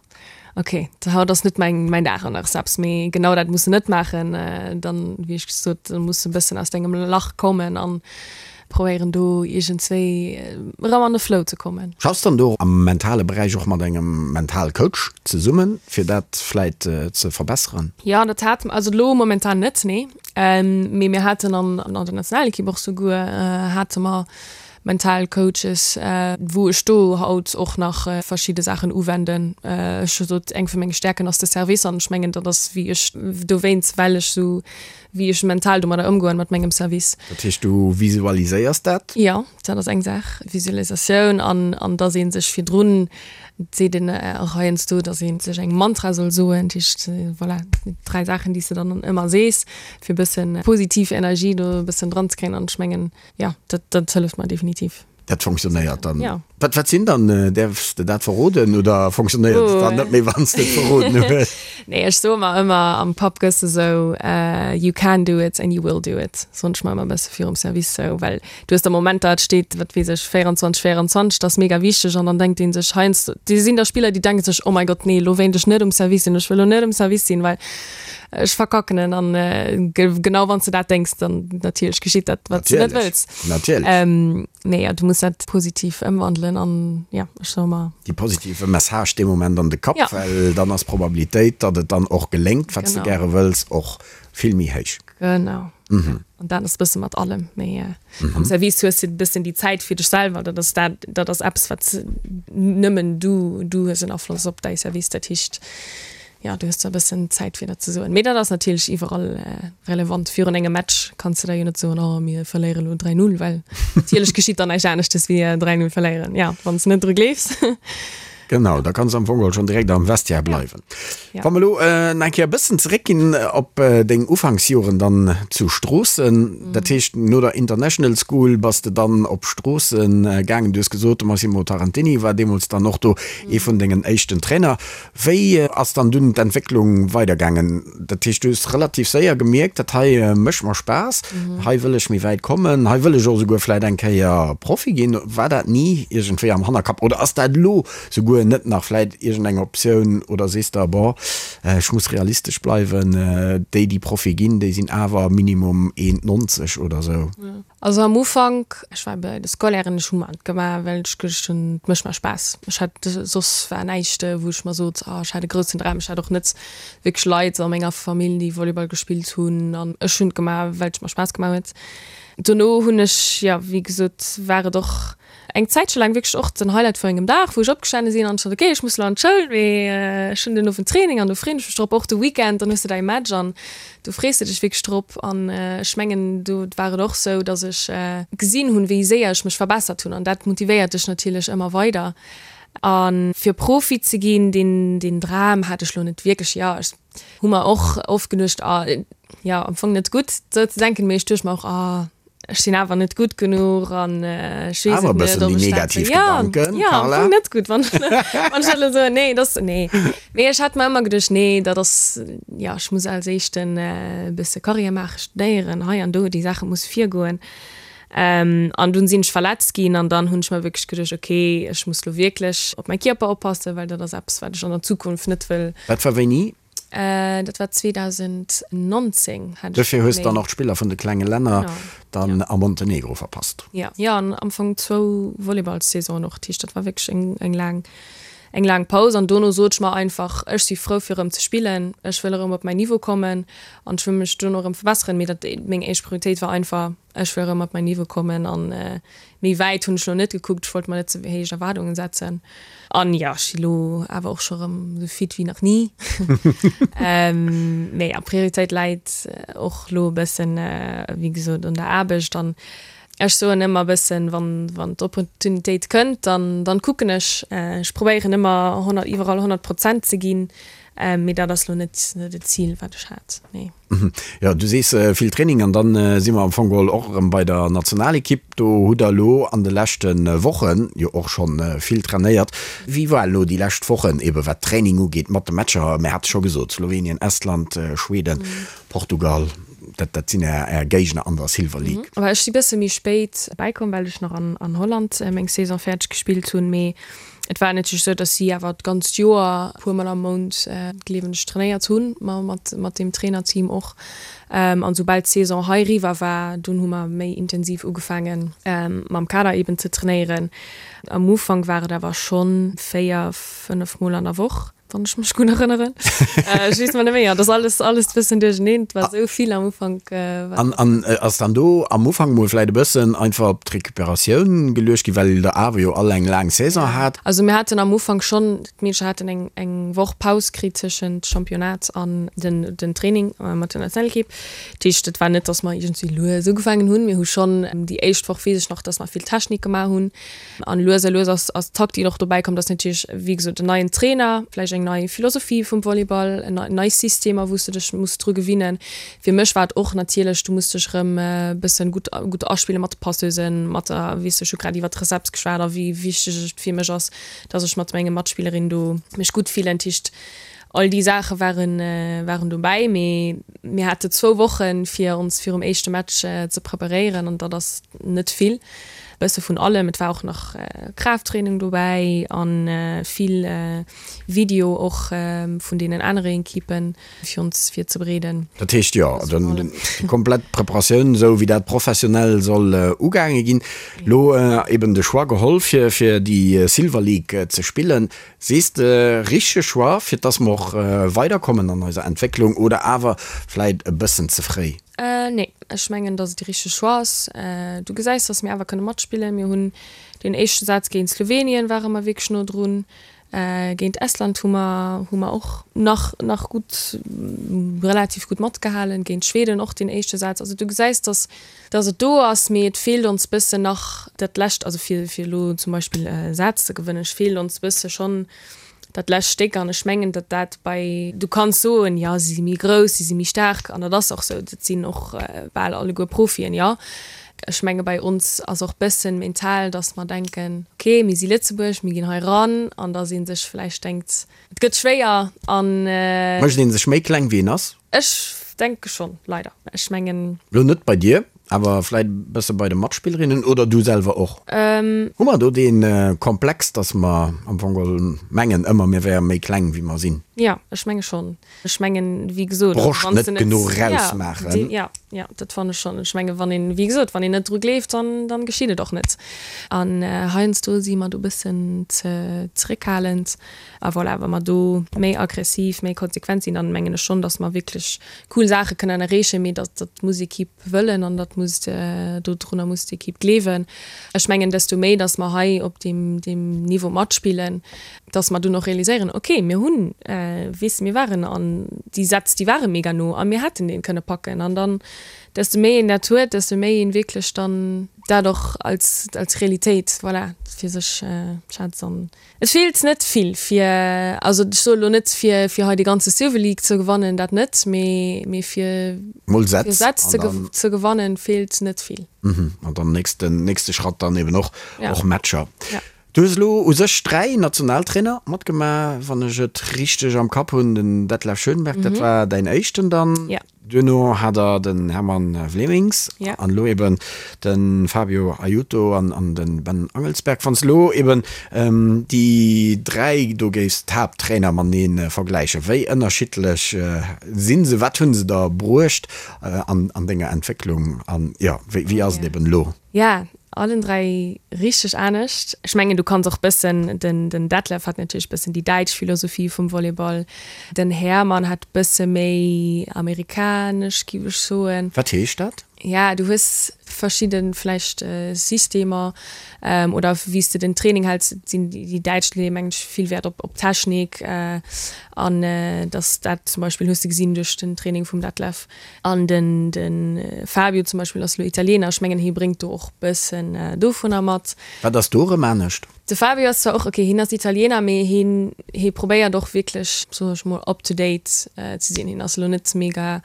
S4: ok, haut ass net mäin mäin Dag an der Receps. Mee genau dat muss de net maachen. Dann, wéi ech gesot, da muss de e bëssen aus dengem Lach kommen an Probéieren do iergendswéi erëm an de Flow ze kommen.
S3: Schaffs dann do am mentale Beräich och mat engem Mentalcoach zesummen, fir dat vläit ze verbesseren?
S4: Jo, dat hate mer, also elo momentan net, nee. Mee mir haten an der Nationalekipp och souguer hate mer mental Coaches, wou ech do haut och nach verschidde Saachen uwenden. Ech hu sot, eng vu menge Stäerken ass de Service an ech mengen, dat ass wéi ech dowéinst, well ech sou wéi ech mental domadder ëmgoen mat mengem Service.
S3: Dat heescht du visualiséiers dat?
S4: Jo, dat ass eng Saach, Visualisatioun an an dass ee sech virdrun, et seet een och heiansdo, dass ee sech eng Mantra soll soen, dat heescht voilà, 3 Saachen déi s de dann ëmmer sees, fir e bëssen positiv Energie do e bëssen dran ze kréien an ech mengen, jo, dat dat hëlleft mer definitiv.
S3: Dat fonctionnéiert dann.
S4: Ja.
S3: Wat, wat sinn dann, däerfs de dat verroden oder fonctionnéiert et dann net méi, wann s de et verroden hues?
S4: Nee, ech soe mer ëmmer, am Pub gëss de sou, You can do it and you will do it, soen ech mer ëmmer e bësse virum Service sou, well du hues da Momenter, et steet, wat weess ech, 24, 24, dat ass mega wichteg an dann denkt ee sech heiansdo, do sinn da Spiller, déi denke sech, Oh mäi Gott, nee, elo wéilt ech net um Service sinn, ech wëll elo net um Service sinn, well ech verkacken en. An genau wann s de dat denks, dann natierlech geschitt dat, wat s de net wëlls.
S3: Natierlech.
S4: Ähm, nee, ja, du muss dat positiv ëmwandelen an ja, ech soe mer.
S3: Déi positive Message dee Moment an de Kapp,
S4: Ja.
S3: well dann ass d'Probabilitéit, datt et dann och geléngt, wat s de
S4: Genau.
S3: gäre wëlls, och vill méi héich.
S4: Genau. An dat ass e bësse mat allem, mee am Service hues de e bëssen déi Zäit fir dech selwer, dat ass dat, dat ass eppes, wat nëmmen du, du hues en Afloss op däi Service, dat heescht, Jo, du hues zwar e bëssen Zäit fir dat ze soen, mee dat ass natierlech iwwerall relevant. Virun engem Match kanns de da jo net soen, oh mir verléiere lo 3, 0, well natierlech geschitt dann näischt aneschtes wéi 3, 0 verléieren, jo, wann s de net dru gleefs.
S3: Genau, da kanns de am Fong geholl schonn direkt am Vestiaire bleiwen.
S4: Ja.
S3: Wa mer elo nach eng Kéier e bëssen zeréckginn op deng Ufanksjoren dann zu Stroossen, dat heescht no der International School bass de dann op Stroossen gaangen. Du hues gesot, de Massimo Tarantini war deemools dann och do ee vun dengen éischten Trainer. Wéi ass dann dunn d'Entwécklung weidergaangen? Dat heescht, du hues relativ séier gemierkt, dat hei mécht mer Spaass, hei wëll ech méi wäit kommen, hei wëll ech och esouguer vläit eng Kéier Profi ginn. War dat ni iergendwéi am Hannerkapp oder ass dat elo souguer? guer net nach vläit iergendeng Optioun oder sees de, bon, ech muss realistesch bleiwen, déi déi Profi ginn, déi sinn awer minimum 1,90 oder sou?
S4: Also am Ufank, ech war bei de Scolairen, ech hu mer et gemaach, well ech geduecht hunn, et mécht mer Spaass. Ech hat, soss war näischt, wou ech mer sot, oh ech hat e groussen Dram. Ech hat och net wierklech Leit a menger Famill, déi Volleyball gespillt hunn an ech hunn et gemaach, well et mer Spaass gemaach huet. Dono hunn ech, jo wéi gesot, war et och Eng Zäitche laang wierklech och den Highlight vu engem Dag, wou ech opgestane sinn an ech sot, ok, ech muss elo an d'Schoul, mee ech hunn den Owend Training an do freeën ech mech drop. Och de Weekend, dann hues de däi Match an do frees de dech wierklech drop. An ech mengen, do war et och sou, datt ech gesinn hunn, wéi séier ech mech verbessert hunn an dat motivéiert dech natierlech ëmmer weider. A fir Profi ze ginn, deen, deen Dram hat ech lo net wierklech. Jo, ech hu mer och oft geduecht, ah, jo, am Fong net gutt, sou ze denken, mee ech duecht mer och, ah, ech sinn awer net gutt genuch an ech weess et net, ob ech dat wëll. Ja, ja, am Fong net gutt, wann wann ech dat elo soen. Nee, dat ass, nee. Mee ech hat mer ëmmer geduecht, nee, dat ass, jo, ech muss als éischten e bësse Karriär maachen, studéieren, hei an do, déi Saache musse virgoen. An dunn sinn ech verletzt ginn an dann hunn ech mer wierklech geduecht, okay, ech muss elo wierklech op mäi Kierper oppassen, well dat ass eppes, wat ech an der Zukunft net wëll.
S3: Dat war wéini?
S4: Dat war 2019
S3: hat ech. Dofir hues dann och d'Spiller vun de klenge Länner dann a Montenegro verpasst.
S4: Jo, jo, an am Fong zwou Volleyballssaisonen och. Dat heescht, dat war wierklech eng, eng laang, eng laang Paus. An dono sot ech mer einfach, ech si frou fir erëm ze spillen, ech wëll erëm op mäin Niveau kommen an ech wëll mech dono erëm verbesseren. Mee dat, meng éischt Prioritéit war einfach, ech wëll erëm op mäin Niveau kommen an méi wäit hunn ech lo net gekuckt, ech wollt mer net ze héich Erwaardungen setzen. An jo, ech si lo awer och scho rëm esou fit wéi nach ni. Mee jo, Prioritéit läit och lo e bëssen, wéi gesot, un der Aarbecht. An ech soen ëmmer e bëssen, wann, wann d'Opportunitéit kënnt, dann, dann kucken ech. Ech probéieren ëmmer 100, iwwerall 100 Prozent ze ginn, mee dat ass lo net, net e Zil, wat ech hat, nee.
S3: Jo, du sees vill Training an dann si mer am Fong geholl och erëm bei der Nationalekipp. Do hutt der elo an de leschte Woche jo och scho vill trainéiert. Wéi war elo déi lescht Wochen ebe wat Training ugeet mat de Matcher? Mir hate scho gesot, Slowenien, Estland, Schweden, Portugal, dat dat sinn är är Géigner an der Silver League.
S4: Ech si bësse méi spéit bäikomm, well ech nach an Holland meng Saison fäerdeg gespillt hunn. Mee Et war natierlech esou, dass si awer d'ganzt Joer e puer Mol am Mount, gleewen ech, trainéiert hunn, mat mat deem Trainerteam och. An soubal d'Saison hei eriwwer war, dunn hu mer méi intensiv ugefaangen, mam Kader eben ze trainéieren. Am Ufank war et awer schonn 4, 5 Mol an der Woch. Wann ech mech gutt erënneren. Ech weess mer net méi. Ja, dat ass alles, alles e bëssen duercherneen. Et war esou vill am Ufank.
S3: An, an ass dann do am Ufank mol vläit e bëssen einfach op d'Recuperatioun geluecht ginn, well der awer jo all eng laang Saison hat?
S4: Also mir haten am Ufank schonn, d'Meedercher haten eng, eng Woch Paus kritt tëschent Championnat an den, den Training mat der Nationalekipp. Dat heescht, et war net, datt mer iergendwéi lues ugefaangen hunn. Mir hu schonn déi éischt Woch, weess ech nach, datt mer vill Technik gemaach hunn. An lues a lues ass ass d'Taktik och dobäi komm, dass natierlech, wéi gesot, en neien Trainer, vläicht eng nei Philosophie vum Volleyball, en nei Systemer, wou s de dech muss dru gewinnen. Fir mech war et och natierlech, du muss dech erëm e bëssen gutt gutt aspillen mat de Passeusen, mat der, weess de, ech hu grad iwwert d'Recepts geschwat a wéi wichteg et fir mech ass, dass ech mat menge Matspillerin do mech gutt fillen. Dat heescht, all déi Saache waren waren dobäi, mee mir hate zwou Wochen, fir ons virum éischte Match ze preparéieren an dat ass net vill. Bësse vun allem, et war och nach Kraafttraining dobäi an vill Video och vun deenen anere Equipen fir ons virzebereeden.
S3: Dat heescht jo, déi komplett Preparatioun esou wéi dat professionell soll ugaange ginn. Lo eben de Choix geholl fir fir déi Silver League ze spillen. Sees de richtege Choix fir dass mer och weiderkommen an eiser Entwécklung oder awer vläit e bëssen ze fréi?
S4: Nee, ech mengen, dass et de richtege Choix ass. Du gesäis, dass mir awer kënne matspillen. Mir hunn deen éischte Saz géint Slowenien ware mer wierklech no drun. Géint Estland hu mer hu mer och nach nach gutt, relativ gutt matgehalen. Géint Schweden och deen éischte Saz. Also du gesäis, dass dass et do ass, mee et feelt ons bëssen nach dat lescht, also fir fir elo zum Beispill e Saz ze gewënnen, et feelt ons bësse schonn dat lescht Stéck an ech mengen, datt dat bei, du kanns soen, jo si si méi grouss, si si méi staark an dat ass och sou, dat sinn och bal alleguer Profien, jo. Ech menge bei ons ass och bëssen mental, datt mer denken, ok mir si Lëtzebuerg, mir ginn hei ran an datt ee sech vläicht denkt, et gëtt schwéier an.
S3: Mécht ee sech méi kleng wéi een ass?
S4: Ech denke schonn, leider. Ech mengen.
S3: Lo net bei dir. Awer vläit e bësse bei de Matspillerinnen oder du selwer och? Hu mer do dee Komplex, dass mer am Fong geholl mengen ëmmer, mir wäre méi kleng wéi mer sinn?
S4: Jo, ech menge schonn. Ech mengen, wéi gesot,
S3: Broscht net genuch rausmaachen.
S4: Jo, jo, dat fannen ech schonn. Ech mengen, wann een, wéi gesot, wann een net dru gleeft, dann, dann geschitt et och net. An heiansdo si mer do e bëssen ze zeréckhalend. A voilà, wa mer do méi aggressiv, méi konsequent sinn, dann mengen ech schonn, dass mer wierklech cool Saache kënnen erreechen. Mee dat, dat muss Equipe wëllen an dat muss, dodrunner muss d'Equipe gleewen. Ech mengen, desto méi, dass mer hei op deem, deem Niveau matspillen, dass mer dunn och realiséieren, okay, mir hunn, weess de, mir waren an déi Sätz, déi ware mega no a mir hätten dee kënne packen. An dann, desto méi een dat huet, desto méi een wierklech dann dat och als, als Realitéit, voilà, fir sech schätzt. An et feelt net vill fir, also ech soe lo net fir, fir hei déi ganze Silver League ze gewannen, dat net, mee, mee fir,
S3: Mol Sätz
S4: fir Sätz ze, ze gewannen, feelt net vill.
S3: An dann nächsten, nächste Schratt dann eben och, och Matcher. Du hues elo u sech 3 Nationaltrainer matgemaach, wann ech et richteg am Kapp hunn, den Detlef Schönberg, dat war däin éischten dann, duerno hat der den Hermann Vleminckx an elo eben de Fabio Aiuto an de Ben Angelsberg. Wann s de elo eben déi 3 do géifs, d'Haapttrainer matenee vergläichen, wéi ënnerschiddlech si se, wat hu se der bruecht an denger Entwécklung an jo, wéi ass et eben elo?
S4: Ja, allen 3 richteg anescht. Ech mengen du kanns och bëssen, den den Detlef hat natierlech bëssen déi däitsch Philosophie vum Volleyball, den Hermann hat bësse méi amerikanesch giff ech soen.
S3: Wat heescht dat?
S4: Ja, du hues verschidde vläicht Systemer oder wéi s de den Training häls, sinn déi däitsch leeë mengen ech vill Wäert op op Technik an dass dat zum Beispill hues de gesinn duerch den Training vum Detlef. An den de Fabio zum Beispill ass elo Italiener, ech mengen hie bréngt do och bëssen dovunner mat.
S3: Wat ass do erëm anescht?
S4: De Fabio ass zwar och, ok hien ass Italiener, mee hien hie probéiert och wierklech, soen ech mol, up to date ze sinn. Hien ass elo net mega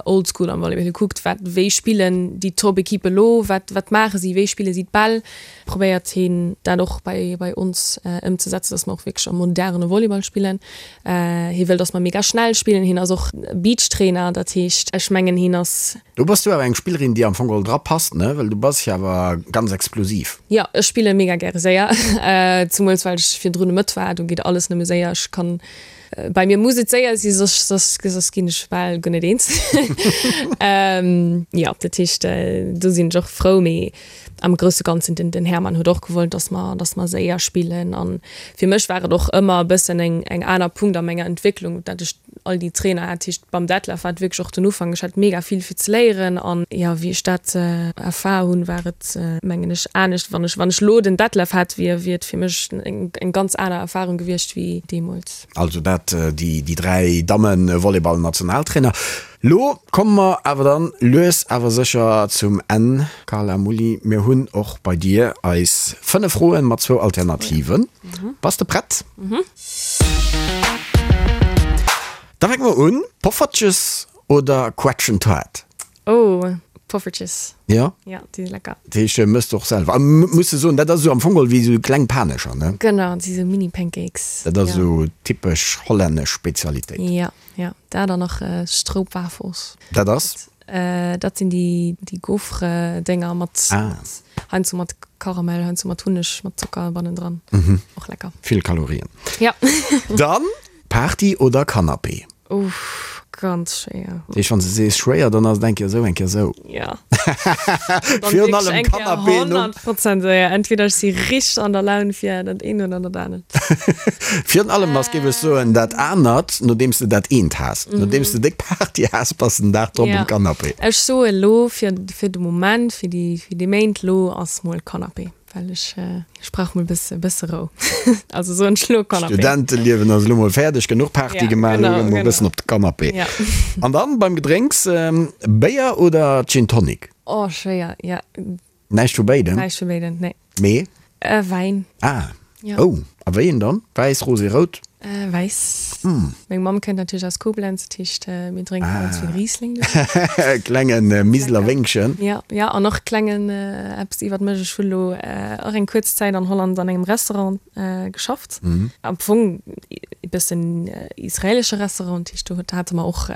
S4: old school am Volleyball. Hie kuckt wat, wéi spillen déi Top-Equippe elo, wat wat maache si, wéi spille si d'Bäll. Probéiert hien dat och bei bei ons ëmzesetzen, dass mer och wierklech am moderne Volleyball spillen. Hie wëll, dass mer mega schnell spillen. Hien ass och Beachtrainer, dat heescht, ech mengen hien ass.
S3: Do bass du awer eng Spillerin, déi am Fong geholl dra passt, ne? Well du bass jo awer ganz explosiv.
S4: Jo, ech spille mega gäre séier, zemools well ech virdrun e Mëtt war, do geet alles nëmme séier. Ech kann, bei mir muss et séier si, soss, soss, soss ginn ech bal guer net eens. Jo, dat heescht, do sinn ech och frou, mee am grousse Ganzen, den, den Hermann huet och gewollt, dass mer, dass mer séier spillen. An fir mech war et och ëmmer e bëssen eng, eng aner Punkt a menger Entwécklung, dat ech all déi Trainer hat. Heescht, beim Detlef war et wierklech och den Ufank, ech hat mega vill fir ze léieren. An jo, wéi ech dat erfahr hunn, war et, mengen ech, anescht. Wann ech, wann ech elo den Detlef hätt, wier, wier et fir mech eng, eng ganz aner Erfahrung gewiescht wéi deemools.
S3: Also dat déi, déi 3 Damme-Volleyball-Nationaltrainer. Lo komme mer awer dann lues awer sécher zum Enn, Carla Mulli. Mir hunn och bei dir eis 5 Froen mat zwou Alternativen. Bass de prett? Da fänke mer un. Poffertjes oder Quetschentaart?
S4: Oh, Poffertjes.
S3: Jo?
S4: Jo, déi si lecker.
S3: Dat heescht, mëss de och selwer? A muss de soen, dat ass esou am Fong geholl wéi esou kleng Panescher, ne?
S4: Genau, dat si sou Mini-Pancakes.
S3: Dat ass esou typesch hollännesch Spezialitéit.
S4: Jo. Ja, dat an nach Stroopwafels.
S3: Dat ass?
S4: Dat sinn déi déi Gaufre-Dénger mat heiansdo mat Karamell, heiansdo mat Hunneg, mat Zocker bannendran. Och lecker.
S3: Vill Kalorien.
S4: Ja.
S3: Dann Party oder Canapé?
S4: Uff, ganz schwéier.
S3: Dat heescht, wann s de sees schwéier, dann ass et eng Kéier esou, eng Kéier esou.
S4: Ja.
S3: Virun allem Canapé no.
S4: 100 Prozent séier. Entweder ech si richteg an der Laun fir dat eent oder dat anert.
S3: Virun allem ass, géif ech soen, dat anert, nodeems de dat eent has. Nodeems de déck Party has, bass de den Dag drop um Canapé.
S4: Ech soe lo fir fir de Moment, fir déi fir déi Méint lo ass mol Canapé, well ech ech brauch mol bësse bësse Rou. Also soen ech lo Canapé.
S3: Studenteliewen ass elo mol fäerdeg, genuch Party gemaach, elo gëtt mol bëssen op de Canapé. An dann beim Gedrénks, Béier oder Gin Tonic?
S4: Oh schwéier, ja.
S3: Näischt vu béidem?
S4: Näischt vu béidem, nee.
S3: Mee?
S4: Wäin.
S3: Ah.
S4: Ja.
S3: Oh, a wéi een dann? Wäiss, rosé, rout?
S4: Wäiss. Meng Mamm kënnt natierlech aus Koblenz, dat heescht mir drénke ganz vill Riesling do.
S3: Klenge Miseler Wéngchen.
S4: Jo, jo, an och klengen eppes iwwert mech, ech hu lo och eng kuerz Zäit an Holland an engem Restaurant geschafft. Am Fong e bëssen israelesche Restaurant, dat heescht do hate mer och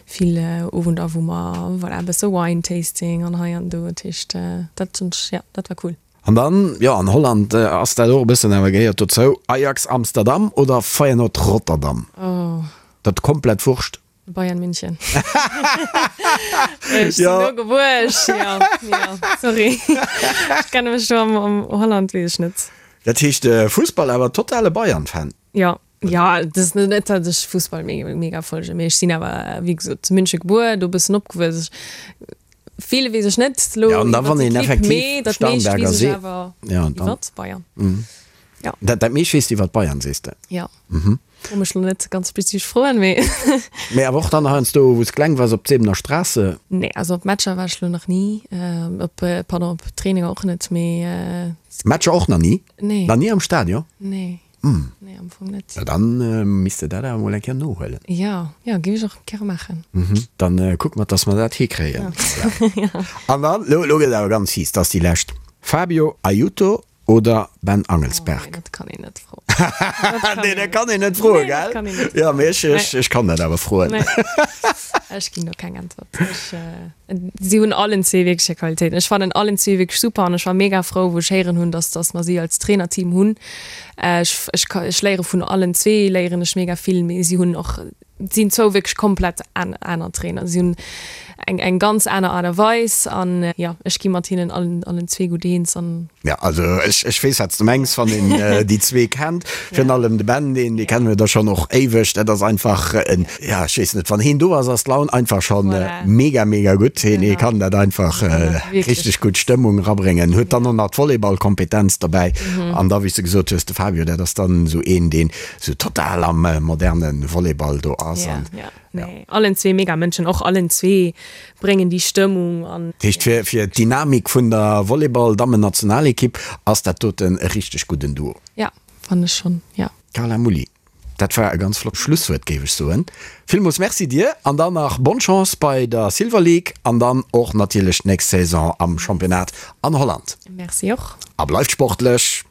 S4: vill Owender wou mer, voilà, e bësse Wine Tasting an hei an do, dat heescht dat hunn ech, jo, dat war cool.
S3: An dann, jo, an Holland ass dat och e bëssen awer gehéiert dozou, Ajax Amsterdam oder Feyenoord Rotterdam?
S4: Oh.
S3: Dat komplett Wurscht.
S4: Bayern München. Ech sinn do gebuer, ech, jo, jo, sorry. Ech kenne mech do am, am Holland, weess ech net.
S3: Dat heescht Fussball awer totale Bayern-Fan?
S4: Jo, jo, et ass net, datt ech Fussball mega, mega folgen, mee ech sinn awer, wéi gesot, zu München gebuer, do e bëssen opgewuess. Ech, vill weess ech net
S3: elo Ja, an da wann een effektiv mee dat meescht weess ech awer
S4: ja, iwwert Bayern.
S3: Ja. Dat, dat meescht weess de iwwert Bayern, sees de?
S4: Ja. Mhm. Fro mech lo net ganz spezifesch Froen, mee.
S3: Mee awer och dann heiansdo, wou s kleng waars, op d'Sebener Straße?
S4: Nee, also op Matcher war ech lo nach ni, op, pardon, op Traininger och net, mee.
S3: Matcher och nach ni?
S4: Nee.
S3: Nach ni am Stadion?
S4: Nee. Nee, am Fong net.
S3: Na dann misst de dat awer mol eng Kéier nohuelen.
S4: Jo, jo, géif ech och gäre maachen.
S3: Dann kucke mer, dass mer dat hikréien. An dann, lo, lo gëtt et awer ganz fies, dat ass déi lescht, Fabio Aiuto oder Ben Angelsberg?
S4: Oh nee, dat kann een net froen.
S3: Nee, dat kann een net froen, gell? Jo, mee ech, ech, ech kann dat awer froen.
S4: Nee, ech ginn do keng Äntwert. Ech, si hunn allen zwee wierklech hir Qualitéiten. Ech fannen allen zwee wierklech super an ech war mega frou, wou ech héieren hunn, dass, dass mer si als Trainerteam hunn. Ech, ech, ech léiere vun allen zwee léieren ech mega vill, mee si hunn och sinn zwou wierklech komplett aner Trainer. Si hunn eng eng ganz aner Aart a Weis an jo, ech gi mat hinnen allen allen zwee gutt eens an.
S3: Jo, also ech ech weess wat s de mengs, wann een déi zwee kennt, virun allem de Ben, deen dee kenne mir da schonn och éiweg, dat ass einfach en, ja ech weess net, wann heen do ass, ass d'Laun einfach schonn mega mega gutt. Heen hee kann dat einfach richteg gutt Stëmmung erabréngen, huet dann och nach d'Volleyballkompetenz dobäi an da wéi s de gesot hues, de Fabio, dat ass dann esou een, deen sou total am moderne Volleyball do ass.
S4: Ja, ja. Nee, allen zwee mega Mënschen, och allen zwee bréngen déi Stëmmung an.
S3: Dat heescht, fir, fir d'Dynamik vun der Volleyball-Dammen-Nationalekipp ass dat doten e richteg gudden Duo.
S4: Ja, fannen ech schonn, ja.
S3: Carla Mulli, dat war e ganz flott Schlusswuert, géif ech soen. Villmools Merci dir an dann nach bonne Chance bei der Silver League an dann och natierlech d'nächst Saison am Championnat an Holland.
S4: Merci och.
S3: A bleift sportlech!